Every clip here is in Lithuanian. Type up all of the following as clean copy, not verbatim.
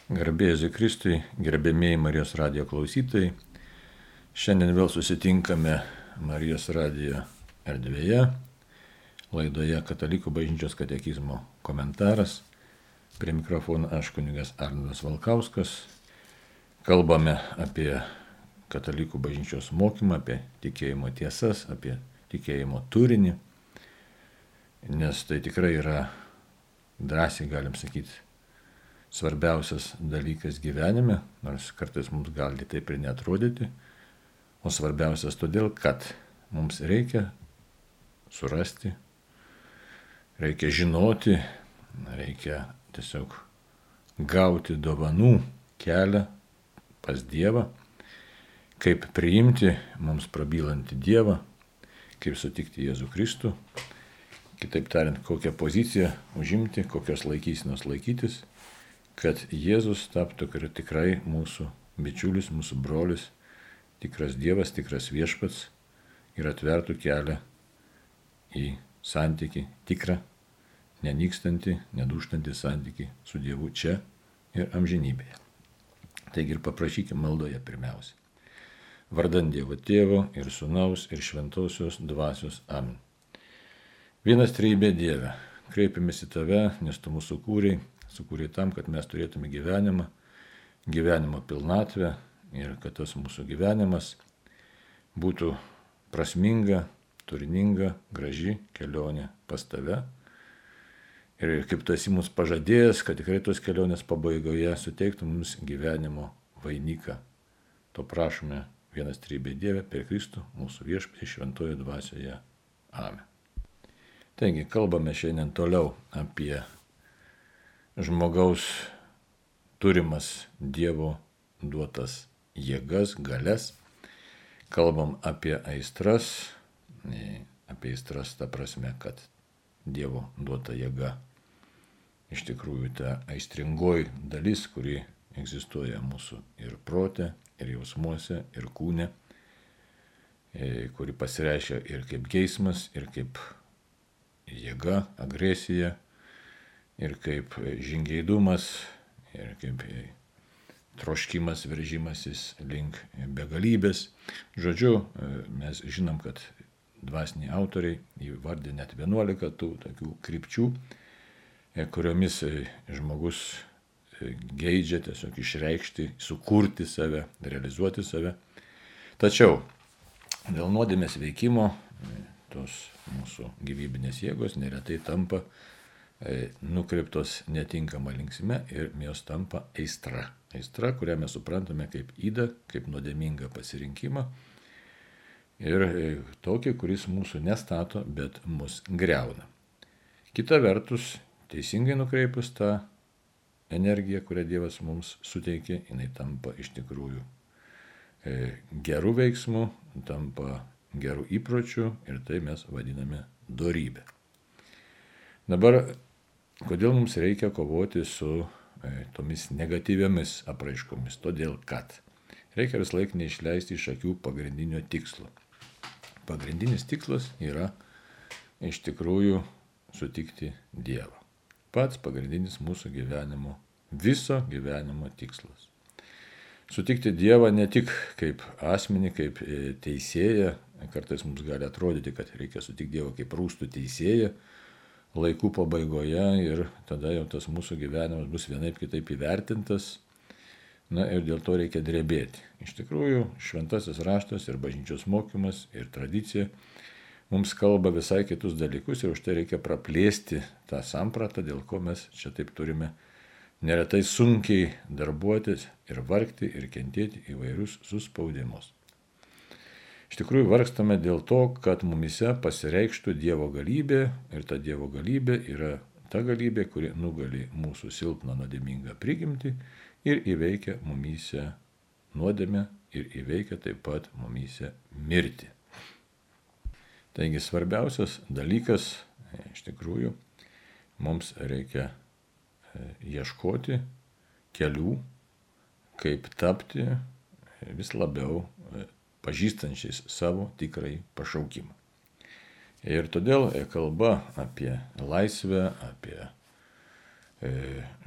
Garbė Jėzui Kristui, gerbėmėjai Marijos radijo klausytojai. Šiandien vėl susitinkame Marijos radijo erdvėje, laidoje Katalikų bažnyčios katekizmo komentaras. Prie mikrofono aš kunigas Arnoldas Valkauskas. Kalbame apie Katalikų bažnyčios mokymą, apie tikėjimo tiesas, apie tikėjimo turinį, nes tai tikrai yra, drąsiai galim sakyti, svarbiausias dalykas gyvenime, nors kartais mums gali taip ir neatrodyti, o svarbiausias todėl, kad mums reikia surasti, reikia žinoti, reikia tiesiog gauti dovanų kelią pas Dievą, kaip priimti mums prabylantį Dievą, kaip sutikti Jėzų Kristų, kitaip tariant, kokią poziciją užimti, kokios laikysenos laikytis, kad Jėzus taptų tikrai mūsų bičiulis, mūsų brolis, tikras Dievas, tikras viešpats ir atvertų kelią į santykį, tikrą, nenykstantį, nedūžtantį santykį su Dievu čia ir amžinybėje. Taigi ir paprašykime maldoje pirmiausia. Vardan Dievo Tėvo ir Sūnaus ir Šventosios Dvasios. Amen. Vienas trejybė Dieve, kreipiamės į Tave, nes Tu mūsų sukūrei tam, kad mes turėtume gyvenimo pilnatvę ir kad tas mūsų gyvenimas būtų prasminga, turininga, graži kelionė pas Tave. Ir kaip Tu esi mums pažadėjęs, kad tikrai tos kelionės pabaigoje suteiktų mums gyvenimo vainiką. To prašome vienas trejybė Dieve per Kristų, mūsų viešpatį šventoje dvasioje. Amen. Taigi, kalbame šiandien toliau apie žmogaus turimas Dievo duotas jėgas, galias. Kalbam apie aistras ta prasme, kad Dievo duota jėga iš tikrųjų ta aistringoji dalis, kuri egzistuoja mūsų ir prote, ir jausmuose, ir kūne, kuri pasireiškia ir kaip geismas, ir kaip jėga, agresija, ir kaip žingeidumas, ir kaip troškimas, veržimasis link begalybės. Žodžiu, mes žinom, kad dvasiniai autoriai įvardė net 11 tų tokių krypčių, kuriomis žmogus geidžia tiesiog išreikšti, sukurti save, realizuoti save. Tačiau dėl nuodėmės veikimo tos mūsų gyvybinės jėgos neretai tampa nukreiptos netinkama linksme ir jos tampa aistra. Aistra, kurią mes suprantame kaip ydą, kaip nuodėmingą pasirinkimą ir tokį, kuris mūsų nestato, bet mus griauna. Kita vertus, teisingai nukreipus tą energiją, kurią Dievas mums suteikė, jinai tampa iš tikrųjų gerų veiksmų, tampa gerų įpročių ir tai mes vadiname dorybę. Dabar, kodėl mums reikia kovoti su tomis negatyviomis apraiškomis? Todėl, kad reikia vis laik neišleisti iš akių pagrindinio tikslo. Pagrindinis tikslas yra iš tikrųjų sutikti Dievą. Pats pagrindinis mūsų gyvenimo, viso gyvenimo tikslas. Sutikti Dievą ne tik kaip asmenį, kaip teisėją. Kartais mums gali atrodyti, kad reikia sutikti Dievą kaip rūstų teisėją laikų pabaigoje ir tada jau tas mūsų gyvenimas bus vienaip kitaip įvertintas. Na ir dėl to reikia drebėti. Iš tikrųjų, šventasis raštas ir bažnyčios mokymas ir tradicija mums kalba visai kitus dalykus ir už tai reikia praplėsti tą sampratą, dėl ko mes čia taip turime neretai sunkiai darbuotis ir vargti ir kentėti įvairius suspaudimus. Iš tikrųjų vargstame dėl to, kad mumise pasireikštų Dievo galybė ir ta Dievo galybė yra ta galybė, kuri nugali mūsų silpną nuodėmingą prigimtį ir įveikia mumise nuodėmę ir įveikia taip pat mumise mirtį. Taigi svarbiausias dalykas, iš tikrųjų, mums reikia ieškoti kelių, kaip tapti vis labiau pažįstančiais savo tikrai pašaukimą. Ir todėl kalba apie laisvę, apie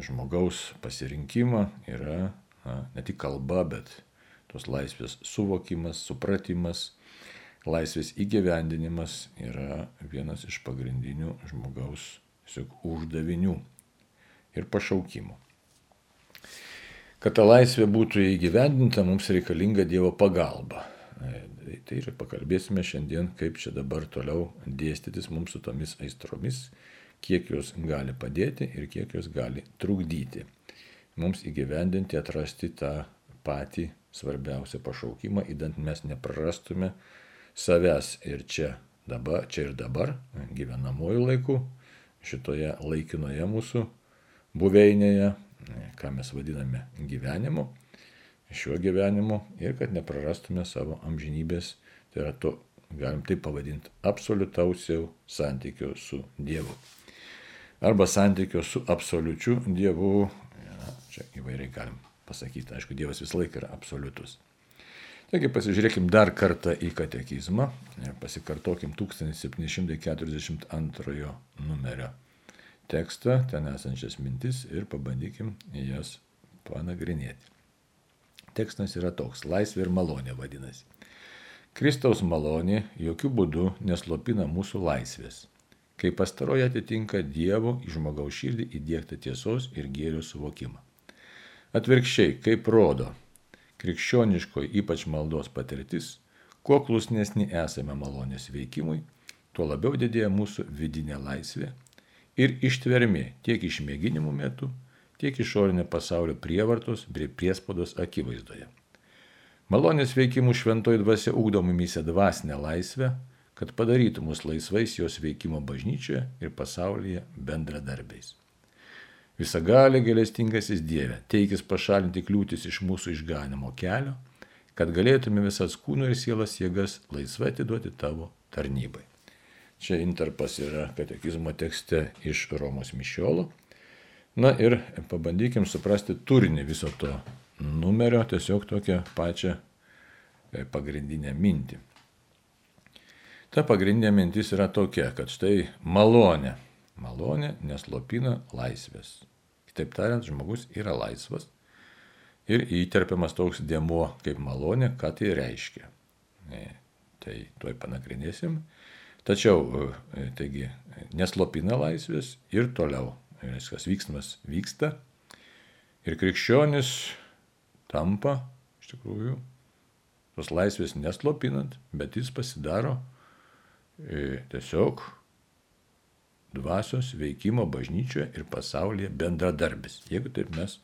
žmogaus pasirinkimą yra ne tik kalba, bet tos laisvės suvokimas, supratimas, laisvės įgyvendinimas yra vienas iš pagrindinių žmogaus uždavinių ir pašaukimų. Kad ta laisvė būtų įgyvendinta, mums reikalinga Dievo pagalba. Tai ir pakalbėsime šiandien, kaip čia dabar toliau dėstytis mums su tomis aistromis, kiek jos gali padėti ir kiek jos gali trukdyti. Mums įgyvendinti, atrasti tą patį svarbiausią pašaukimą, idant mes neprarastume savęs ir čia ir dabar, gyvenamojų laikų, šitoje laikinoje mūsų buveinėje, ką mes vadiname gyvenimu, šiuo gyvenimu, ir kad neprarastume savo amžinybės, tai yra to, galim taip pavadinti, absoliutaus santykio su Dievu. Arba santykio su absoliučiu Dievu, čia įvairiai galim pasakyti, aišku, Dievas visą laiką yra absoliutus. Taigi pasižiūrėkim dar kartą į katekizmą ir pasikartokim 1742 numerio tekstą, ten esančias mintis ir pabandykim jas panagrinėti. Tekstas yra toks, laisvė ir malonė vadinasi. Kristaus malonė jokių būdų neslopina mūsų laisvės, kai pastaroji atitinka Dievo į žmogaus širdį įdiegtą tiesos ir gėrio suvokimą. Atvirkščiai, kaip rodo krikščioniškoji ypač maldos patirtis, kuo klusnesni esame malonės veikimui, tuo labiau didėja mūsų vidinė laisvė ir ištvermė tiek išmėginimų metu, tiek išorinio pasaulio prievartos bei priespaudos akivaizdoje. Malonės veikimų šventoji dvasia ugdo mumyse dvasinę laisvę, kad padarytų mus laisvais jos veikimo bažnyčioje ir pasaulyje bendradarbiais. Visagalė gailestingasis Dieve, teikis pašalinti kliūtis iš mūsų išganimo kelio, kad galėtume visas kūno ir sielos jėgas laisvai atiduoti tavo tarnybai. Čia intarpas yra katekizmo tekste iš Romos mišiolo. Na ir pabandykim suprasti turinį viso to numerio, tiesiog tokią pačią pagrindinę mintį. Ta pagrindinė mintis yra tokia, kad štai malonė neslopina laisvės. Kitaip tariant, žmogus yra laisvas ir įterpiamas toks dėmuo kaip malonė, ką tai reiškia. Tai tuoj panagrinėsim. Tačiau, taigi, neslopina laisvės ir toliau. Viskas vyksmas vyksta ir krikščionis tampa, iš tikrųjų, tos laisvės neslopinant, bet jis pasidaro tiesiog dvasios veikimo bažnyčioje ir pasaulyje bendradarbis. Jeigu taip mes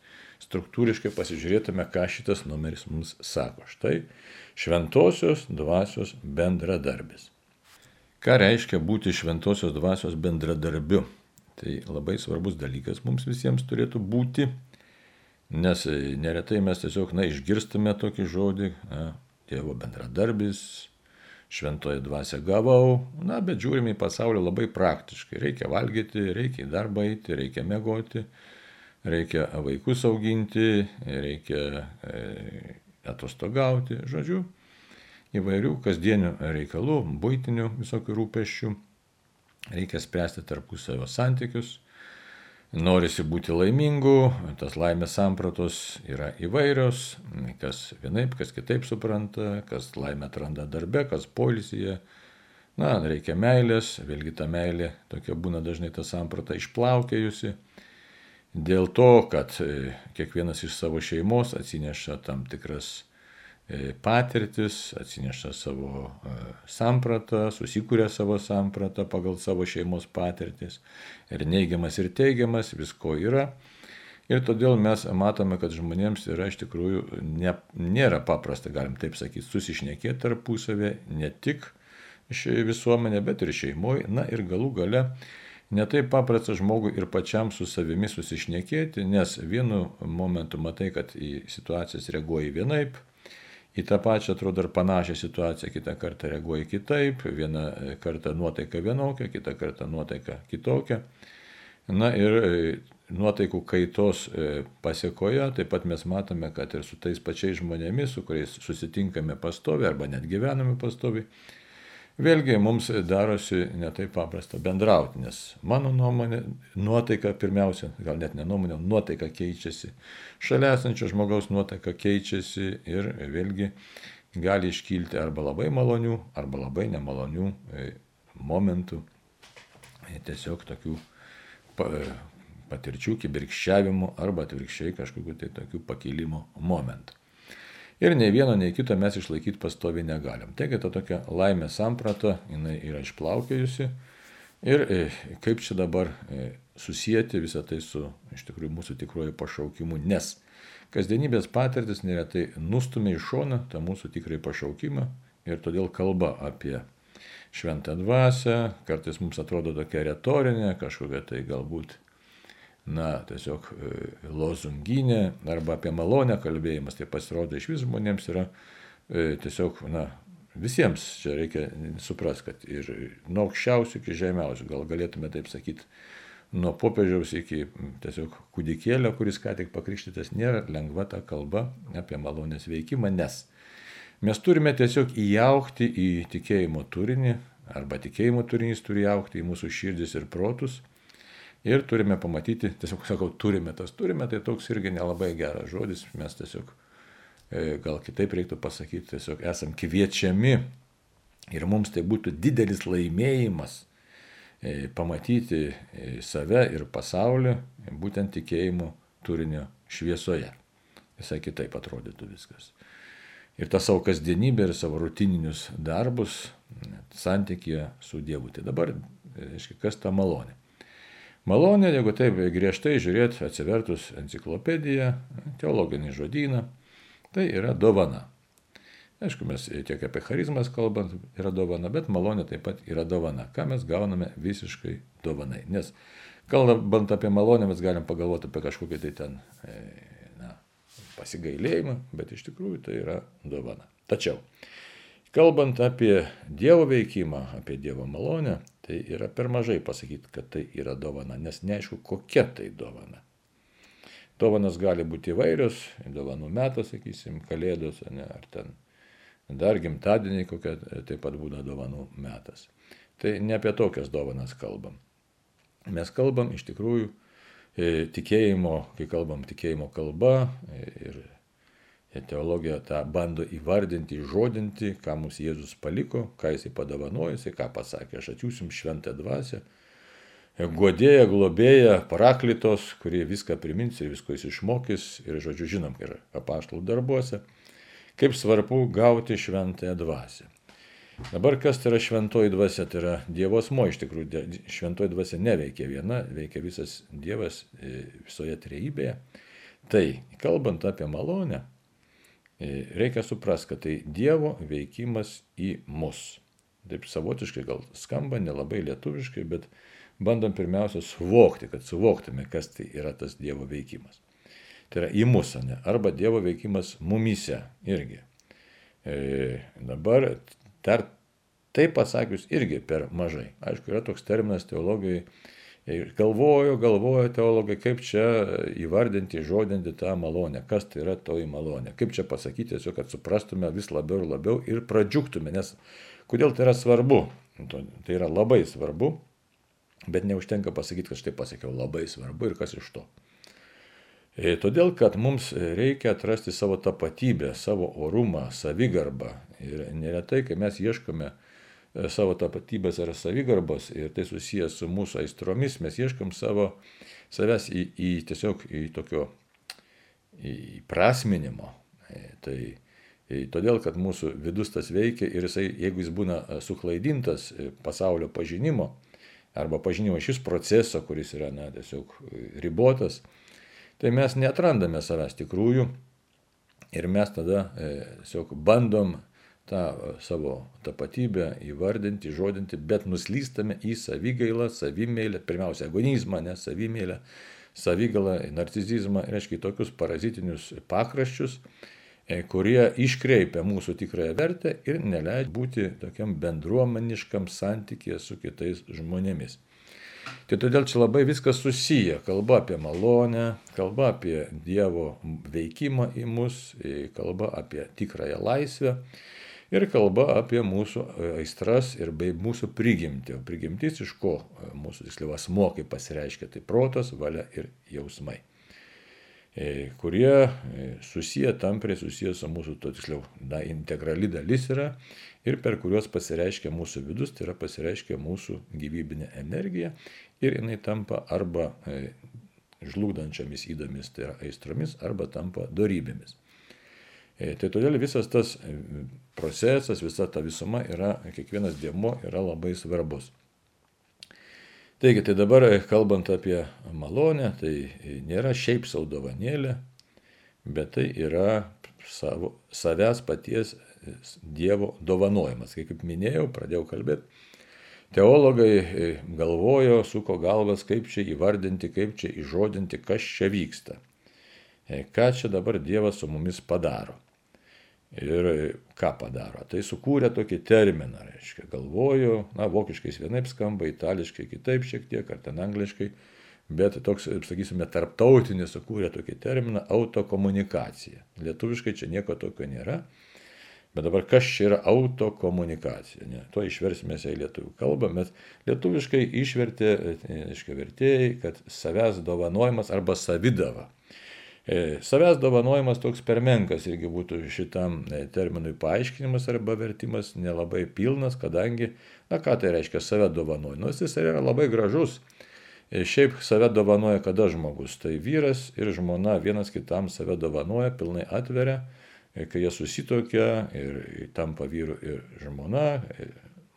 struktūriškai pasižiūrėtume, ką šitas numeris mums sako. Štai šventosios dvasios bendradarbis. Ką reiškia būti šventosios dvasios bendradarbiu? Tai labai svarbus dalykas mums visiems turėtų būti, nes neretai mes tiesiog išgirstame tokį žodį, Dievo bendradarbis, šventoji dvasia gavau, bet žiūrime į pasaulį labai praktiškai. Reikia valgyti, reikia į darbą eiti, reikia miegoti, reikia vaikus auginti, reikia atostogauti, žodžiu, įvairių kasdienių reikalų, buitinių visokių rūpesčių. Reikia spręsti tarpusavio santykius, norisi būti laimingu, tas laimės sampratos yra įvairios, kas vienaip, kas kitaip supranta, kas laimę atranda darbe, kas poilsyje. Reikia meilės, vėlgi ta meilė tokia būna dažnai ta samprata išplaukėjusi. Dėl to, kad kiekvienas iš savo šeimos atsineša tam tikras patirtis, atsineša savo sampratą, susikūrė savo sampratą pagal savo šeimos patirtis. Ir neigiamas, ir teigiamas, visko yra. Ir todėl mes matome, kad žmonėms yra iš tikrųjų nėra paprasta, galim taip sakyti, susišnekėti tarpusavę, ne tik visuomenė, bet ir šeimoje. Ir galų gale netaip paprasta žmogui ir pačiam su savimi susišnekėti, nes vienu momentu matai, kad į situacijas reaguoji vienaip, į tą pačią, atrodo, ir panašią situaciją kitą kartą reaguoji kitaip, vieną kartą nuotaika vienokia, kitą kartą nuotaika kitokia. Ir nuotaikų kaitos pasiekoje taip pat mes matome, kad ir su tais pačiais žmonėmis, su kuriais susitinkame pastoviai arba net gyvename pastoviai, vėlgi mums darosi netaip paprasta bendrauti, nes mano nuomonė, nuotaika pirmiausia, gal net ne nuomonė, nuotaika keičiasi, šalia esančio žmogaus nuotaika keičiasi ir vėlgi gali iškilti arba labai malonių, arba labai nemalonių momentų, tiesiog tokių patirčių, kibirkščiavimų arba atvirkščiai kažkokių tai tokių pakilimo momentų. Ir nei vieno, nei kito mes išlaikyti pastoviai negalim. Taigi ta tokia laimės samprata, jinai yra išplaukėjusi. Ir kaip čia dabar susijęti visą tai su iš tikrųjų mūsų tikruoju pašaukimu, nes kasdienybės patirtis neretai nustumia į šoną tą mūsų tikrąjį pašaukimą ir todėl kalba apie šventą dvasią, kartais mums atrodo tokia retorinė, kažkokia tai galbūt tiesiog lozunginė arba apie malonę kalbėjimas, tai pasirodo iš vis žmonėms yra tiesiog, visiems čia reikia suprasti, kad ir nuo aukščiausių iki žemiausių, gal galėtume taip sakyti, nuo popiežiaus iki tiesiog kūdikėlio, kuris ką tik pakrikštytas, nėra lengva ta kalba apie malonės veikimą, nes mes turime tiesiog įaugti į tikėjimo turinį, arba tikėjimo turinys turi įaugti į mūsų širdis ir protus. Ir turime pamatyti, tiesiog sakau, turime, tai toks irgi nelabai geras žodis, mes tiesiog, gal kitaip reiktų pasakyti, tiesiog esam kviečiami ir mums tai būtų didelis laimėjimas pamatyti save ir pasaulį būtent tikėjimo turinio šviesoje. Visai kitaip atrodytų viskas. Ir tą savo kasdienybę ir savo rutininius darbus santykėje su Dievu. Tai dabar, reiškia, kas ta malonė? Malonė, jeigu taip griežtai žiūrėti, atsivertus enciklopediją, teologinį žodyną, tai yra dovana. Aišku, mes tiek apie charizmas kalbant yra dovana, bet malonė taip pat yra dovana. Ką mes gauname visiškai dovanai. Nes kalbant apie malonę, mes galim pagalvoti apie kažkokį tai ten pasigailėjimą, bet iš tikrųjų tai yra dovana. Tačiau, kalbant apie Dievo veikimą, apie Dievo malonę, tai yra per mažai pasakyti, kad tai yra dovana, nes neaišku, kokia tai dovana. Dovanas gali būti įvairios, dovanų metas, sakysim, kalėdos, ar ten dar gimtadieniai, kokia taip pat būna dovanų metas. Tai ne apie tokias dovanas kalbam. Mes kalbam iš tikrųjų tikėjimo, kai kalbam tikėjimo kalba ir teologija tą bando įvardinti, įžodinti, ką mums Jėzus paliko, ką jisai padovanojo, ką pasakė, aš atsiųsim šventą dvasią, guodėją, globėją, paraklitos, kurie viską primins ir visko jis išmokys. Ir žodžiu, žinom, ir apaštalų darbuose, kaip svarbu gauti šventąją dvasią. Dabar kas tai yra šventoji dvasia? Tai yra Dievo asmuo, iš tikrųjų šventoji dvasia neveikia viena, veikia visas Dievas visoje trejybėje. Tai, kalbant apie malonę, reikia suprasti, kad tai Dievo veikimas į mus. Taip savotiškai gal skamba, nelabai lietuviškai, bet bandom pirmiausia suvokti, kad suvoktume, kas tai yra tas Dievo veikimas. Tai yra į mus, arba Dievo veikimas mumyse irgi. Dabar dar taip pasakius irgi per mažai. Aišku, yra toks terminas teologijai. Galvojo teologai, kaip čia įvardinti, žodinti tą malonę. Kas tai yra toji malonė? Kaip čia pasakyti, tiesiog, kad suprastume vis labiau ir labiau ir pradžiugtume. Nes kodėl tai yra svarbu? Tai yra labai svarbu, bet neužtenka pasakyti, kad štai pasakiau labai svarbu ir kas iš to. Todėl, kad mums reikia atrasti savo tapatybę, savo orumą, savigarbą. Ir neretai, kai mes ieškome savo tapatybės ar savigarbos ir tai susijęs su mūsų aistromis, mes ieškom savęs tiesiog į tokio įprasminimo. Tai todėl, kad mūsų vidus tas veikia ir jisai, jeigu jis būna suklaidintas pasaulio pažinimo arba pažinimo šis proceso, kuris yra tiesiog ribotas, tai mes neatrandame savęs tikrųjų ir mes tada tiesiog bandom tą savo tapatybę įvardinti, žodinti, bet nuslystame į savigailą, savimeilę, pirmiausia, egonizmą, savimeilę, savigalą, narcizizmą, reiškia tokius parazitinius pakraščius, kurie iškreipia mūsų tikrąją vertę ir neleidžia būti tokiam bendruomeniškam santykėje su kitais žmonėmis. Tai todėl čia labai viskas susiję. Kalba apie malonę, kalba apie Dievo veikimą į mus, kalba apie tikrąją laisvę. Ir kalba apie mūsų aistras ir bei mūsų prigimtį. O prigimtis iš ko mūsų tiksliau asmuo, kaip pasireiškia, tai protas, valia ir jausmai, kurie tampriai susiję su mūsų, to tiksliau, integrali dalis yra ir per kuriuos pasireiškia mūsų vidus, tai yra pasireiškia mūsų gyvybinė energija ir jinai tampa arba žlugdančiomis įdomis, tai yra aistromis, arba tampa dorybėmis. Tai todėl visas tas procesas, visa ta visuma yra, kiekvienas dėmuo yra labai svarbus. Taigi, tai dabar kalbant apie malonę, tai nėra šiaip sau dovanėlė, bet tai yra savęs paties Dievo dovanojimas. Kaip minėjau, pradėjau kalbėti, teologai galvojo, suko galvas, kaip čia įvardinti, kaip čia įžodinti, kas čia vyksta. Ką čia dabar Dievas su mumis padaro. Ir ką padaro? Tai sukūrė tokį terminą, reiškia, galvoju, vokiškais vienaip skamba, itališkai kitaip šiek tiek, ar ten angliškai, bet toks, sakysime, tarptautinis sukūrė tokį terminą autokomunikacija. Lietuviškai čia nieko tokio nėra, bet dabar kas čia yra autokomunikacija? Ne? To išversime į lietuvių kalbą, bet lietuviškai išvertė, reiškia, vertėjai, kad savęs dovanojimas arba savidava. Savęs dovanojimas toks per menkas irgi būtų šitam terminui paaiškinimas arba vertimas nelabai pilnas, kadangi, ką tai reiškia save dovanoja? Jis yra labai gražus. Šiaip save dovanoja kada žmogus? Tai vyras ir žmona vienas kitam save dovanoja, pilnai atveria, kai jie susitokia ir tampa vyru ir žmona,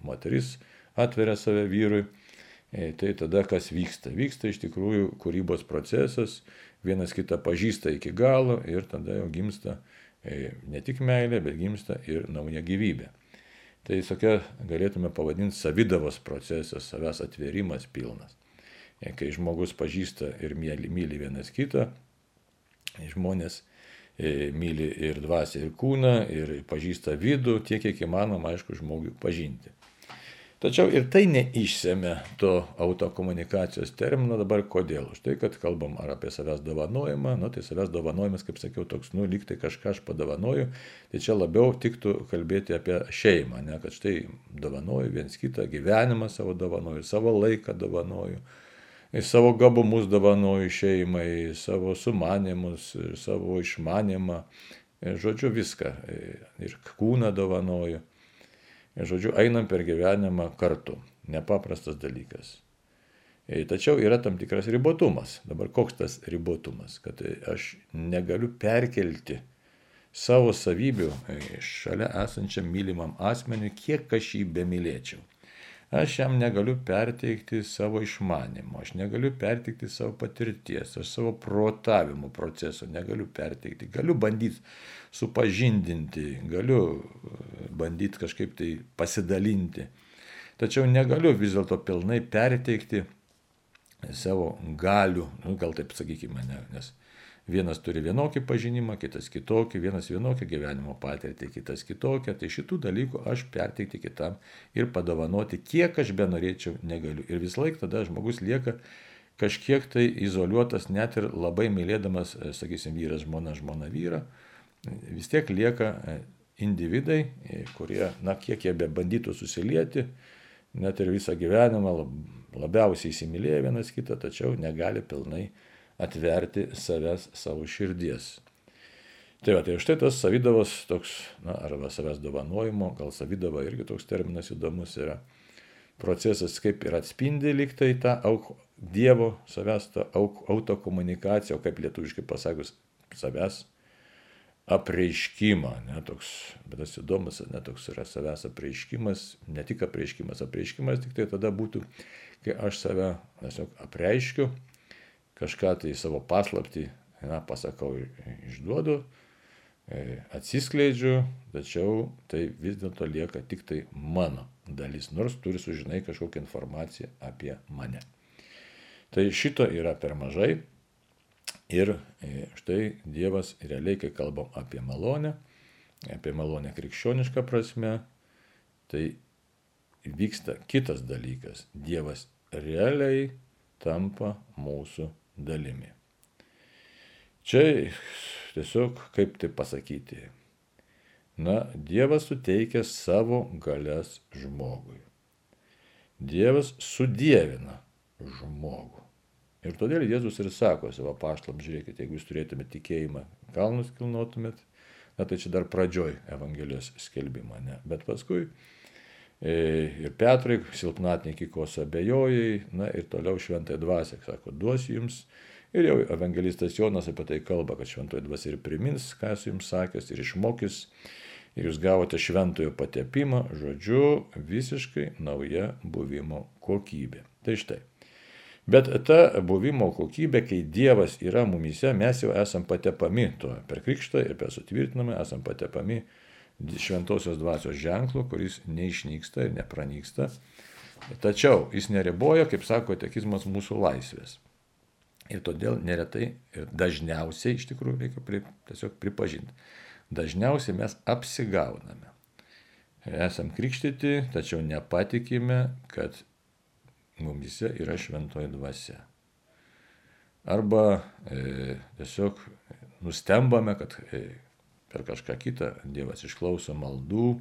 moteris atveria save vyrui. Tai tada kas vyksta? Vyksta iš tikrųjų kūrybos procesas, vienas kitą pažįsta iki galo ir tada jau gimsta ne tik meilė, bet gimsta ir nauja gyvybė. Tai tokia galėtume pavadinti savidavos procesas, savęs atvėrimas pilnas. Kai žmogus pažįsta ir myli vienas kitą, žmonės myli ir dvasią, ir kūną, ir pažįsta vidų, tiek kiek įmanoma, aišku, žmogui pažinti. Tačiau ir tai neišsemia to autokomunikacijos termino dabar kodėl. Už tai, kad kalbam ar apie savęs dovanojimą, tai savęs dovanojimas, kaip sakiau, toks, lyg tai kažką aš padovanoju, tai čia labiau tiktų kalbėti apie šeimą, ne, kad štai dovanoju viens kitą, gyvenimą savo dovanoju, savo laiką dovanoju, savo gabumus dovanoju šeimai, savo sumanimus, savo išmanimą, žodžiu viską, ir kūną dovanoju. Žodžiu, einam per gyvenimą kartu. Nepaprastas dalykas. Tačiau yra tam tikras ribotumas. Dabar koks tas ribotumas? Kad aš negaliu perkelti savo savybių šalia esančiam mylimam asmeniui, kiek aš jį bemylėčiau. Aš jam negaliu perteikti savo išmanimo, aš negaliu perteikti savo patirties, aš savo protavimo proceso negaliu perteikti. Galiu bandyti supažindinti, galiu bandyti kažkaip tai pasidalinti. Tačiau negaliu vis dėlto pilnai perteikti savo galių, gal taip sakykime, nes vienas turi vienokį pažinimą, kitas kitokį, vienas vienokią gyvenimo patirtį, kitas kitokią. Tai šitų dalykų aš perteikti kitam ir padovanoti, kiek aš benorėčiau, negaliu. Ir vis laik tada žmogus lieka kažkiek tai izoliuotas, net ir labai mylėdamas, sakysim, vyras, žmona vyrą, vis tiek lieka individai, kurie, kiek jie bebandytų susilieti, net ir visą gyvenimą labiausiai įsimylėję vienas kitą, tačiau negali pilnai atverti savęs, savo širdies. Tai štai tas savidavos toks, arba savęs dovanojimo, gal savidava irgi toks terminas įdomus yra, procesas kaip ir atspindi lyg tai tą Dievo savęs tą autokomunikaciją, o kaip lietuviškai pasakius, savęs apreiškimą, toks, bet tas įdomus, toks yra savęs apreiškimas, ne tik apreiškimas tik tai tada būtų, kai aš save tiesiog apreiškiu, kažką tai savo paslaptį, pasakau, išduodu, atsiskleidžiu, tačiau tai vis dėlto lieka tik tai mano dalis, nors turi sužinai kažkokią informaciją apie mane. Tai šito yra per mažai ir štai Dievas realiai, kai kalbam apie malonę krikščionišką prasme, tai vyksta kitas dalykas. Dievas realiai tampa mūsų dalimi. Čia tiesiog, kaip tai pasakyti, Dievas suteikia savo galias žmogui. Dievas sudievina žmogų. Ir todėl Jėzus ir sako savo apaštalams, žiūrėkite, jeigu jūs turėtumėte tikėjimą, kalnus kilnotumėt, tai čia dar pradžioj Evangelijos skelbimą, ne? Bet paskui ir Petrai, silpnatiniai kos abejojai, ir toliau šventąją dvasią, sako, duosiu jums. Ir jau evangelistas Jonas apie tai kalba, kad šventoji dvasia ir primins, ką esu jums sakęs, ir išmokys, ir jūs gavote šventojo patepimą, žodžiu, visiškai nauja buvimo kokybė. Tai štai. Bet ta buvimo kokybė, kai Dievas yra mumyse, mes jau esam patepami to per krikštą ir per sutvirtinamą esam patepami šventosios dvasios ženklu, kuris neišnyksta ir nepranyksta. Tačiau jis neriboja, kaip sako katekizmas, mūsų laisvės. Ir todėl neretai ir dažniausiai, iš tikrųjų, reikia tiesiog pripažinti, dažniausiai mes apsigauname. Esam krikštyti, tačiau nepatikime, kad mumyse yra šventoji dvasia. Arba tiesiog nustembame, kad per kažką kitą Dievas išklauso maldų.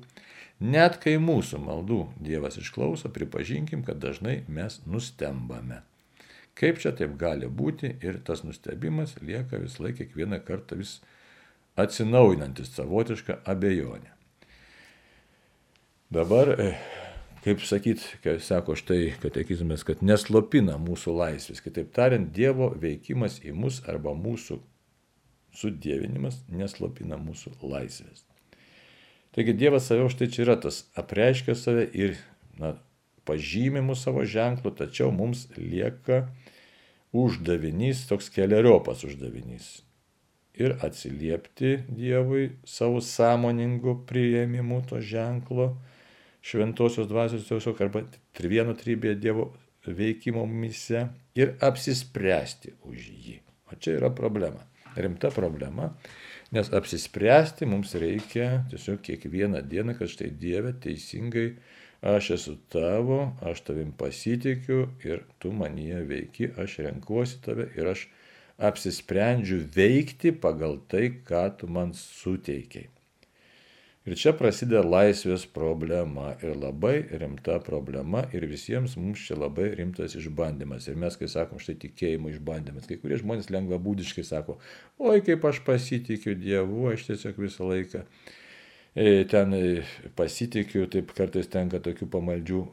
Net kai mūsų maldų Dievas išklauso, pripažinkim, kad dažnai mes nustembame. Kaip čia taip gali būti ir tas nustebimas lieka vis laik kiekvieną kartą vis atsinaujinantis savotišką abejonę. Dabar, kaip sakyti, kai sako štai katekizmas, kad neslopina mūsų laisvės. Kitaip tariant, Dievo veikimas į mus arba mūsų sudievinimas neslopina mūsų laisvės. Taigi Dievas save štai čia yra tas, apreiškia save ir pažymi mūsų savo ženklu, tačiau mums lieka uždavinys, toks keleriopas uždavinys. Ir atsiliepti Dievui savo sąmoningu priėmimu to ženklo, šventosios dvasios tiesiog arba vieno trybėje Dievo veikimo mumyse ir apsispręsti už jį. O čia yra problema. Rimta problema, nes apsispręsti mums reikia tiesiog kiekvieną dieną, kad štai Dieve teisingai aš esu tavo, aš tavim pasitikiu ir tu manyje veiki, aš renkuosi tave ir aš apsisprendžiu veikti pagal tai, ką tu man suteikiai. Ir čia prasideda laisvės problema ir labai rimta problema ir visiems mums čia labai rimtas išbandymas. Ir mes, kai sakom, štai tikėjimo išbandymas, kai kurie žmonės lengvabūdiškai sako, oi kaip aš pasitikiu Dievu, aš tiesiog visą laiką ten pasitikiu, taip kartais tenka tokių pamaldžių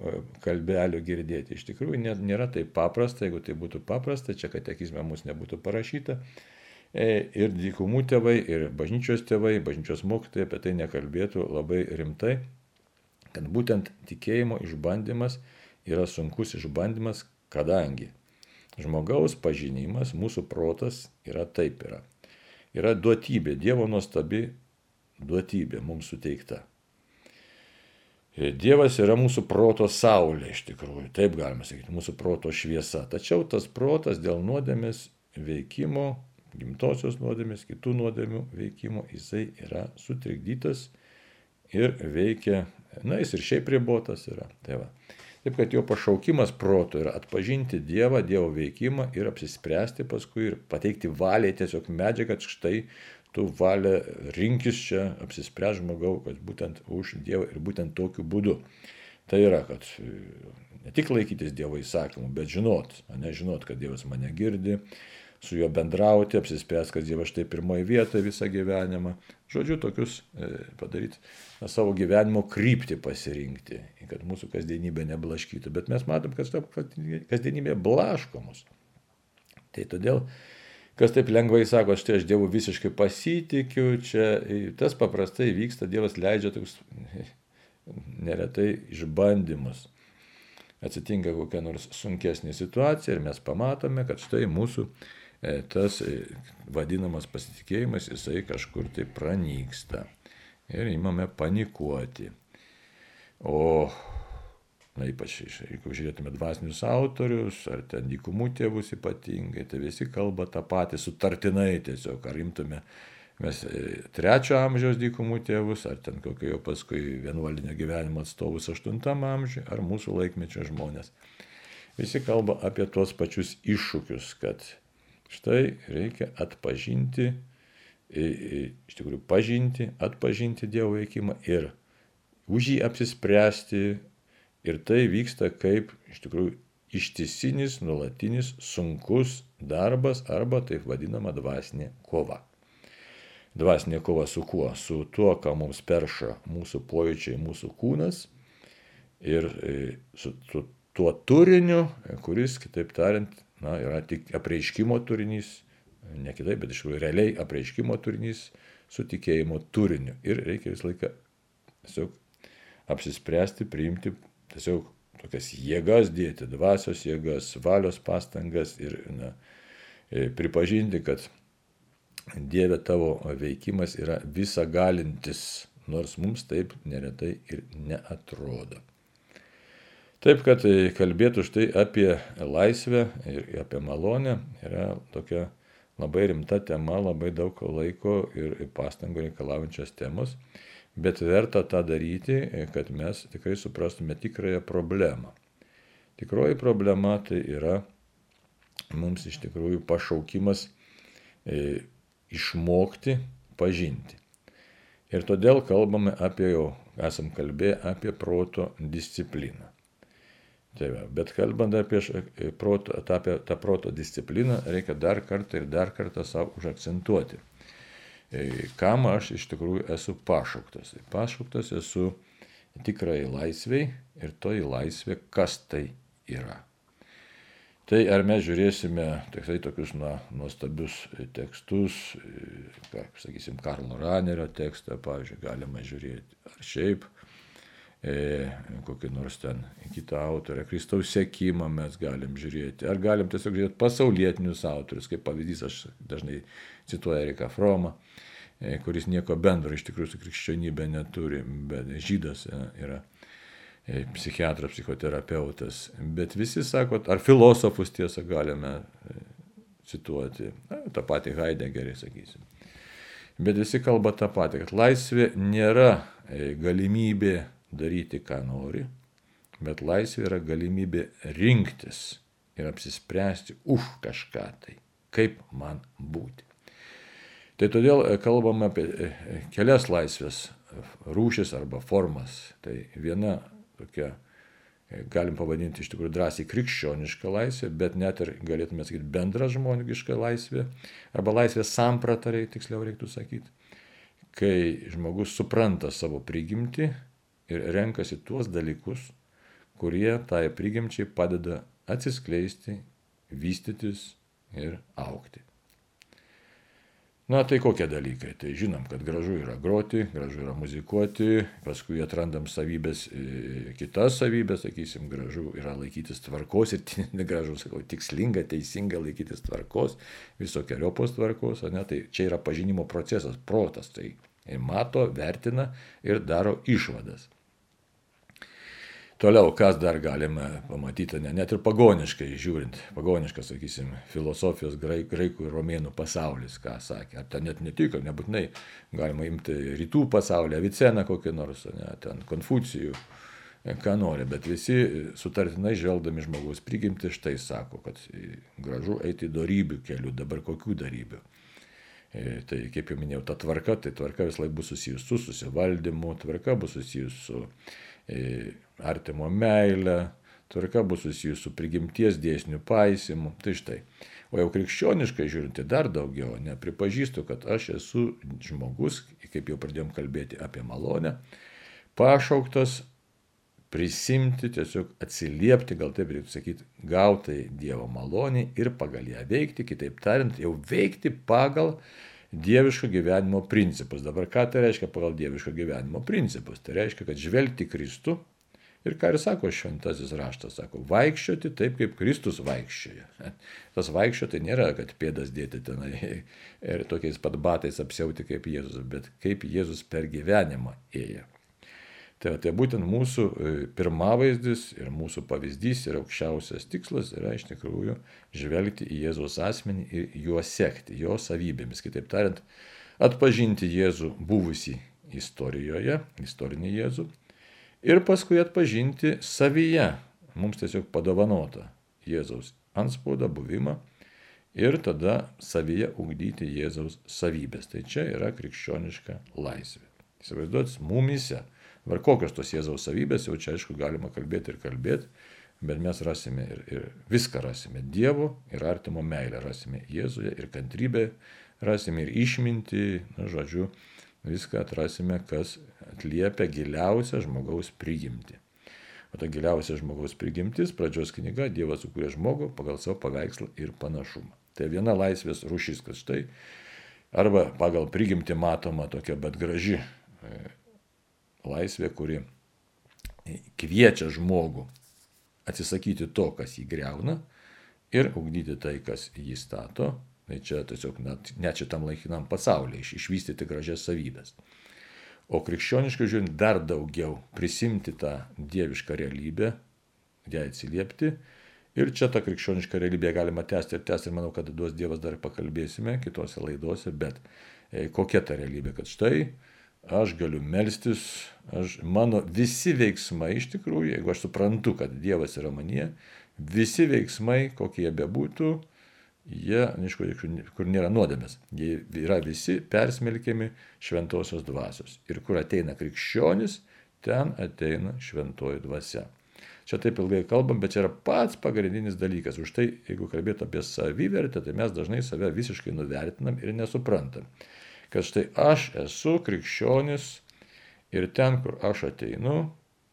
kalbelių girdėti. Iš tikrųjų nėra taip paprasta, jeigu tai būtų paprasta, čia katekizme mums nebūtų parašyta. Ir dykumų tėvai, ir bažnyčios tėvai, bažnyčios mokytojai apie tai nekalbėtų labai rimtai, kad būtent tikėjimo išbandymas yra sunkus išbandymas, kadangi žmogaus pažinimas, mūsų protas yra taip yra. Yra duotybė, Dievo nuostabi duotybė mums suteikta. Dievas yra mūsų proto saulė, iš tikrųjų, taip galima sakyti, mūsų proto šviesa. Tačiau tas protas dėl nuodėmės veikimo, gimtosios nuodėmės, kitų nuodėmių veikimo, jisai yra sutrikdytas ir veikia, jis ir šiaip ribotas yra. Taip, kad jo pašaukimas proto yra atpažinti Dievą, Dievo veikimą ir apsispręsti paskui ir pateikti valiai tiesiog medžiagą, kad štai tu valia rinkis čia, apsispręs žmogau, kad būtent už Dievą ir būtent tokiu būdu. Tai yra, kad ne tik laikytis Dievo įsakymų, bet žinot, kad Dievas mane girdi, su juo bendrauti, apsispręs, kad Dievas štai pirmoje vietoje visą gyvenimą. Žodžiu, tokius padaryti, savo gyvenimo kryptį pasirinkti, kad mūsų kasdienybė neblaškytų. Bet mes matom, kad kasdienybė blaško mus. Tai todėl, kas taip lengvai sako, štai aš Dievu visiškai pasitikiu, čia tas paprastai vyksta, Dievas leidžia toks neretai išbandymus. Atsitinka kokia nors sunkesnė situacija ir mes pamatome, kad štai mūsų tas vadinamas pasitikėjimas, jisai kažkur tai pranyksta. Ir imame panikuoti. O ypač, jeigu žiūrėtume dvasinius autorius, ar ten dykumų tėvus ypatingai, tai visi kalba tą patį sutartinai tiesiog. Ar imtume mes 3 amžiaus dykumų tėvus, ar ten kokio jau paskui vienuolinio gyvenimo atstovus 8 amžiuje, ar mūsų laikmečio žmonės. Visi kalba apie tuos pačius iššūkius, kad štai reikia atpažinti iš tikrųjų pažinti, atpažinti Dievo veikimą ir už jį apsispręsti. Ir tai vyksta kaip iš tikrųjų ištisinis, nuolatinis, sunkus darbas arba taip vadinama dvasinė kova. Dvasinė kova su kuo? Su tuo, ką mums perša mūsų pojūčiai, mūsų kūnas ir su tuo turiniu, kuris, kitaip tariant, yra tik apreiškimo turinys, ne kitaip, bet iš tikrųjų realiai apreiškimo turinys su tikėjimo turiniu. Ir reikia visą laiką tiesiog apsispręsti, priimti tiesiog tokias jėgas dėti, dvasios jėgas, valios pastangas ir pripažinti, kad Dieve tavo veikimas yra visagalintis, nors mums taip neretai ir neatrodo. Taip, kad kalbėtų štai apie laisvę ir apie malonę yra tokia labai rimta tema, labai daug laiko ir pastangų reikalaujančios temos, bet verta tą daryti, kad mes tikrai suprastume tikrąją problemą. Tikroji problema tai yra mums iš tikrųjų pašaukimas išmokti pažinti. Ir todėl kalbame apie, jau esam kalbėję apie proto discipliną. Tai va, bet kalbant apie tą proto discipliną, reikia dar kartą savo užakcentuoti. Kam aš iš tikrųjų esu pašauktas? Pašauktas esu tikrai laisvei ir toji laisvė, kas tai yra. Tai ar mes žiūrėsime tikrai tokius nuostabius tekstus, sakysim, Karlo Ranerio tekstą, pavyzdžiui, galima žiūrėti, ar šiaip kokį nors ten kitą autorę, Kristaus sekimą mes galim žiūrėti, ar galim tiesiog žiūrėti pasaulietinius autorius, kaip pavyzdys aš dažnai cituoju Eriką Fromą, kuris nieko bendro iš tikrųjų su krikščionybė neturi, bet žydas yra psichiatras, psichoterapeutas, bet visi sako, ar filosofus tiesą galime cituoti, tą patį Heideggerį, sakysim. Bet visi kalba tą patį, kad laisvė nėra galimybė daryti, ką nori, bet laisvė yra galimybė rinktis ir apsispręsti už kažką tai, kaip man būti. Tai todėl kalbame apie kelias laisvės rūšis arba formas. Tai viena tokia, galim pavadinti iš tikrųjų drąsiai krikščionišką laisvę, bet net ir galėtume sakyti bendra žmoniška laisvė, arba laisvės samprata, tiksliau reiktų sakyti, kai žmogus supranta savo prigimtį ir renkasi tuos dalykus, kurie tai prigimčiai padeda atsiskleisti, vystytis ir augti. Tai kokie dalykai? Tai žinom, kad gražu yra groti, gražu yra muzikuoti, paskui atrandam savybės, kitas savybės, sakysim, gražu yra laikytis tvarkos ir gražu, sakau, tikslinga, teisinga laikytis tvarkos, visokiojopos tvarkos, tai čia yra pažinimo procesas, protas, tai mato, vertina ir daro išvadas. Toliau, kas dar galime pamatyti, net ir pagoniškai žiūrint, pagoniškas, sakysim, filosofijos graikų ir romėnų pasaulis, ką sakė, ar ten net netiko, nebūtinai galima imti rytų pasaulį, Aviceną kokį nors, ten Konfucijų, ką nori, bet visi sutartinai žvelgdami žmogaus prigimtį štai sako, kad gražu eiti dorybių kelių, dabar kokių dorybių. Tai kaip jau minėjau, ta tvarka, tai tvarka vis laik bus susijus su susivaldymu, tvarka bus susijus su artimo meilę, tvarka bus susijus su prigimties dėsnių paisymu. Tai štai. O jau krikščioniškai žiūrint, tai dar daugiau, pripažįstu, kad aš esu žmogus, kaip jau pradėjom kalbėti apie malonę, pašauktas prisimti, tiesiog atsiliepti, gal taip reiktų sakyti, gautai Dievo malonį ir pagal ją veikti, kitaip tariant, jau veikti pagal dieviško gyvenimo principus. Dabar ką tai reiškia pagal dieviško gyvenimo principus? Tai reiškia, kad žvelgti Kristų ir ką ir sako šventasis raštas, sako, vaikščioti taip, kaip Kristus vaikščioja. Tas vaikščioti nėra, kad pėdas dėti tenai ir tokiais pat batais apsiauti kaip Jėzus, bet kaip Jėzus per gyvenimą ėjo. Tai būtent mūsų pirmavaizdis ir mūsų pavyzdys ir aukščiausias tikslas yra iš tikrųjų žvelgti į Jėzaus asmenį ir juo sekti, jo savybėmis. Kitaip tariant, atpažinti Jėzų buvusį istorijoje, istorinį Jėzų, ir paskui atpažinti savyje, mums tiesiog padovanotą Jėzaus antspaudą, buvimą ir tada savyje ugdyti Jėzaus savybės. Tai čia yra krikščioniška laisvė. Įsivaizduot, mumyse. Var kokios tos Jėzaus savybės, jau čia aišku galima kalbėti, bet mes rasime ir viską rasime. Dievo ir artimo meilę rasime Jėzuje, ir kantrybę rasime, ir išmintį, žodžiu, viską atrasime, kas atliepia giliausią žmogaus prigimtį. O ta giliausia žmogaus prigimtis, pradžios knyga, Dievas sukūrė žmogų pagal savo paveikslą ir panašumą. Tai viena laisvės rūšis, kad štai, arba pagal prigimtį matoma tokia, bet graži laisvė, kuri kviečia žmogų atsisakyti to, kas jį greuna, ir ugdyti tai, kas jį stato. Tai čia tiesiog net šitam laikinam pasaulyje išvystyti gražias savybės. O krikščioniškai žiūrint dar daugiau prisimti tą dievišką realybę, ją atsiliepti. Ir čia tą krikščionišką realybę galima tęsti, ir manau, kad duos Dievas dar pakalbėsime kitose laidose, bet kokia ta realybė, kad štai aš galiu melstis, mano visi veiksmai iš tikrųjų, jeigu aš suprantu, kad Dievas yra manyje, visi veiksmai, kokie jie bebūtų, jie, kur nėra nuodėmės, jie yra visi persmelkiami šventosios dvasios. Ir kur ateina krikščionis, ten ateina šventoji dvasia. Čia taip ilgai kalbam, bet čia yra pats pagrindinis dalykas. Už tai, jeigu kalbėt apie savivertę, tai mes dažnai save visiškai nuvertinam ir nesuprantam. Kad štai aš esu krikščionis ir ten, kur aš ateinu,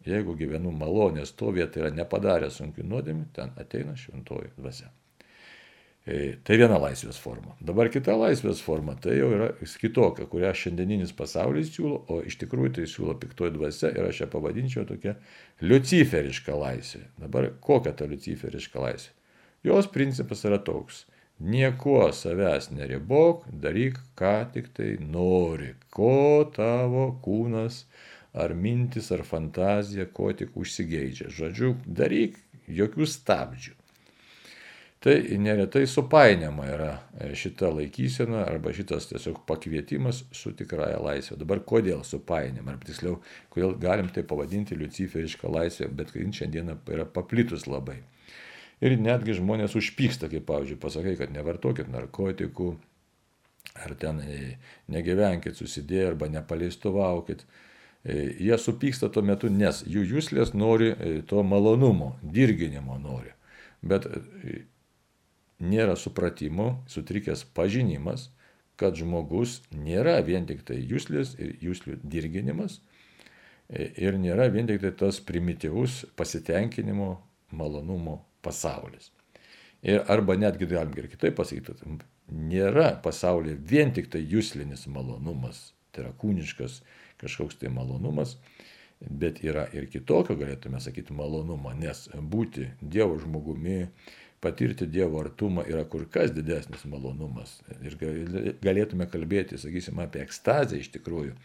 jeigu gyvenu malonės stovėje, tai yra nepadaręs sunkių nuodėmių, ten ateina šventoji dvasia. Tai viena laisvės forma. Dabar kita laisvės forma, tai jau yra kitokia, kurią šiandieninis pasaulis siūlo, o iš tikrųjų tai siūlo piktoji dvasia ir aš ją pavadinčiau tokia liuciferiška laisvė. Dabar kokia ta liuciferiška laisvė? Jos principas yra toks. Niekuo savęs neribok, daryk, ką tik tai nori, ko tavo kūnas ar mintis ar fantazija, ko tik užsigeidžia. Žodžiu, daryk, jokių stabdžių. Tai neretai supainiama yra šita laikysena arba šitas tiesiog pakvietimas su tikrąja laisvė. Dabar kodėl supainiama, ar tiksliau, kodėl galim tai pavadinti liuciferišką laisvę, bet šiandieną yra paplitus labai. Ir netgi žmonės užpyksta, kaip pavyzdžiui, pasakai, kad nevartokit narkotikų, ar ten negyvenkit susidėję, arba nepaleistuvaukit. Jie supyksta tuo metu, nes jų juslės nori to malonumo, dirginimo nori. Bet nėra supratimo, sutrikęs pažinimas, kad žmogus nėra vien tik tai juslės ir juslių dirginimas ir nėra vien tik tai tas primityvus pasitenkinimo, malonumo pasaulis. Ir arba netgi galim ir kitaip pasakyti, nėra pasaulyje vien tik tai juslinis malonumas, tai yra kūniškas kažkoks tai malonumas, bet yra ir kitokio, galėtume sakyti, malonumo, nes būti Dievo žmogumi, patirti Dievo artumą yra kur kas didesnis malonumas. Ir galėtume kalbėti, sakysime, apie ekstazę iš tikrųjų.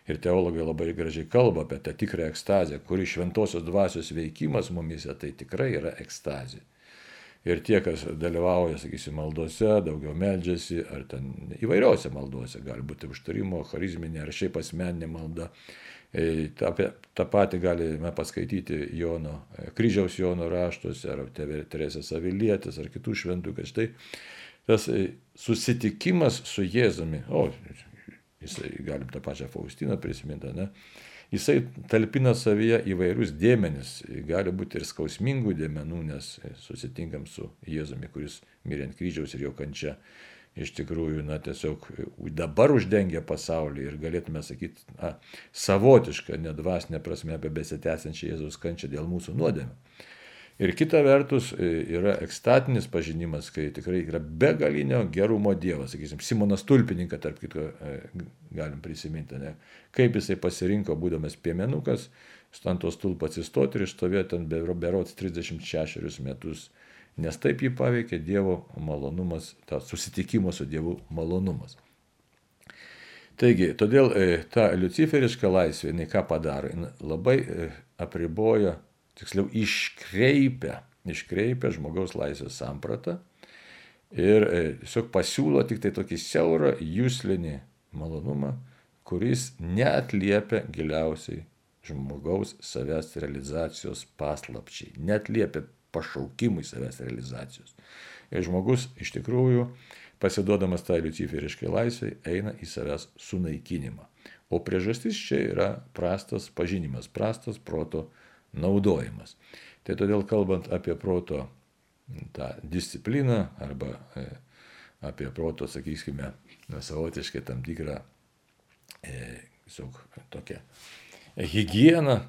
Ir teologai labai gražiai kalba apie tą tikrą ekstazę, kuri šventosios dvasios veikimas mumise, tai tikrai yra ekstazė. Ir tie, kas dalyvauja, sakysime, maldose, daugiau meldžiasi, ar ten įvairiose maldose, gali būti užtarimo, charizminė, ar šiaip asmeninė malda. Ta pati galime paskaityti kryžiaus Jono raštuose, ar Teresės Avilietės, ar kitų šventų, kad štai tas susitikimas su Jėzumi, jisai, galim tą pačią Faustiną prisiminti, ne? Jisai talpina savyje įvairius dėmenis, gali būti ir skausmingų dėmenų, nes susitinkam su Jėzumi, kuris mirė ant kryžiaus ir jo kančia iš tikrųjų, tiesiog dabar uždengia pasaulį ir galėtume sakyti, savotišką, nedvasinę prasme apie besitęsiančią Jėzaus kančią dėl mūsų nuodėmių. Ir kita vertus yra ekstatinis pažinimas, kai tikrai yra begalinio gerumo Dievas, sakysim, Simonas Tulpininką, tarp kitko, galim prisiminti, ne? Kaip jisai pasirinko, būdamas piemenukas, ant to stulpo atsistoti ir išstovėti ten berods 36 metus. Nes taip jį paveikė Dievo malonumas, ta susitikimo su Dievu malonumas. Taigi, todėl ta liuciferiška laisvė, jinai ką padaro, jinai labai apriboja, tiksliau iškreipia žmogaus laisvės sampratą ir tiesiog pasiūlo tik tai tokį siaurą juslinį malonumą, kuris neatliepia giliausiai žmogaus savęs realizacijos paslapčiai, neatliepia pašaukimui savęs realizacijos. ir žmogus iš tikrųjų, pasiduodamas tai luciferiškai laisvei, eina į savęs sunaikinimą. O priežastis čia yra prastas pažinimas, prastas proto naudojimas. Tai todėl kalbant apie proto tą discipliną arba apie proto, sakykime, savotiškai tam tikrą tokią higieną,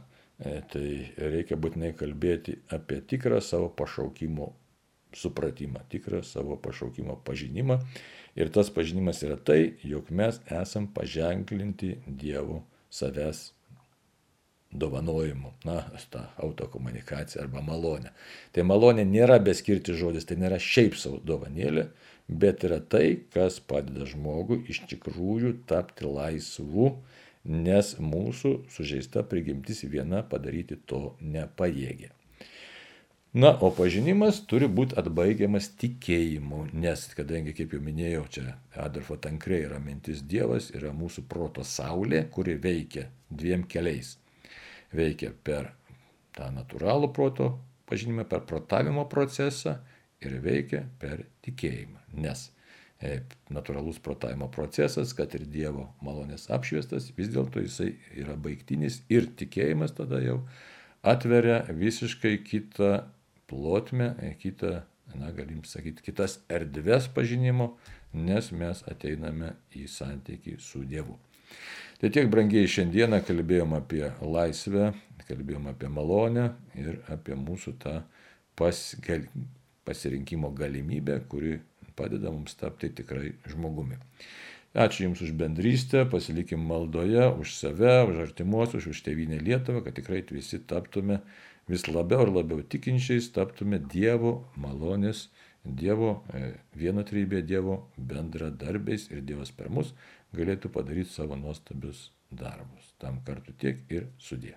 tai reikia būtinai kalbėti apie tikrą savo pašaukimo supratimą, tikrą savo pašaukimo pažinimą. Ir tas pažinimas yra tai, jog mes esam paženklinti Dievo savęs dovanojimu, tą autokomunikaciją arba malonę. Tai malonė nėra beskirti žodis, tai nėra šiaip savo dovanėlė, bet yra tai, kas padeda žmogui iš tikrųjų tapti laisvu, nes mūsų sužeista prigimtis viena padaryti to nepajėgia. Na, o pažinimas turi būti atbaigiamas tikėjimu, nes, kadangi, kaip jau minėjau, čia Adolfo Tankre yra mintis Dievas, yra mūsų proto saulė, kuri veikia dviem keliais. Veikia per tą natūralų proto pažinimą, per protavimo procesą ir veikia per tikėjimą. Nes natūralus protavimo procesas, kad ir Dievo malonės apšviestas, vis dėlto jisai yra baigtinis ir tikėjimas tada jau atveria visiškai kitą plotmę, galim sakyti, kitas erdves pažinimo, nes mes ateiname į santykį su Dievu. Tai tiek, brangiai, šiandieną kalbėjom apie laisvę, kalbėjom apie malonę ir apie mūsų tą pasirinkimo galimybę, kuri padeda mums tapti tikrai žmogumi. Ačiū Jums už bendrystę, pasilikim maldoje, už save, už artimuosius, už tėvynę Lietuvą, kad tikrai visi taptume vis labiau ir labiau tikinčiais, taptume Dievo malonės, Dievo vienotrybė, Dievo bendradarbiais ir Dievas per mus galėtų padaryti savo nuostabius darbus. Tam kartu tiek ir sudie.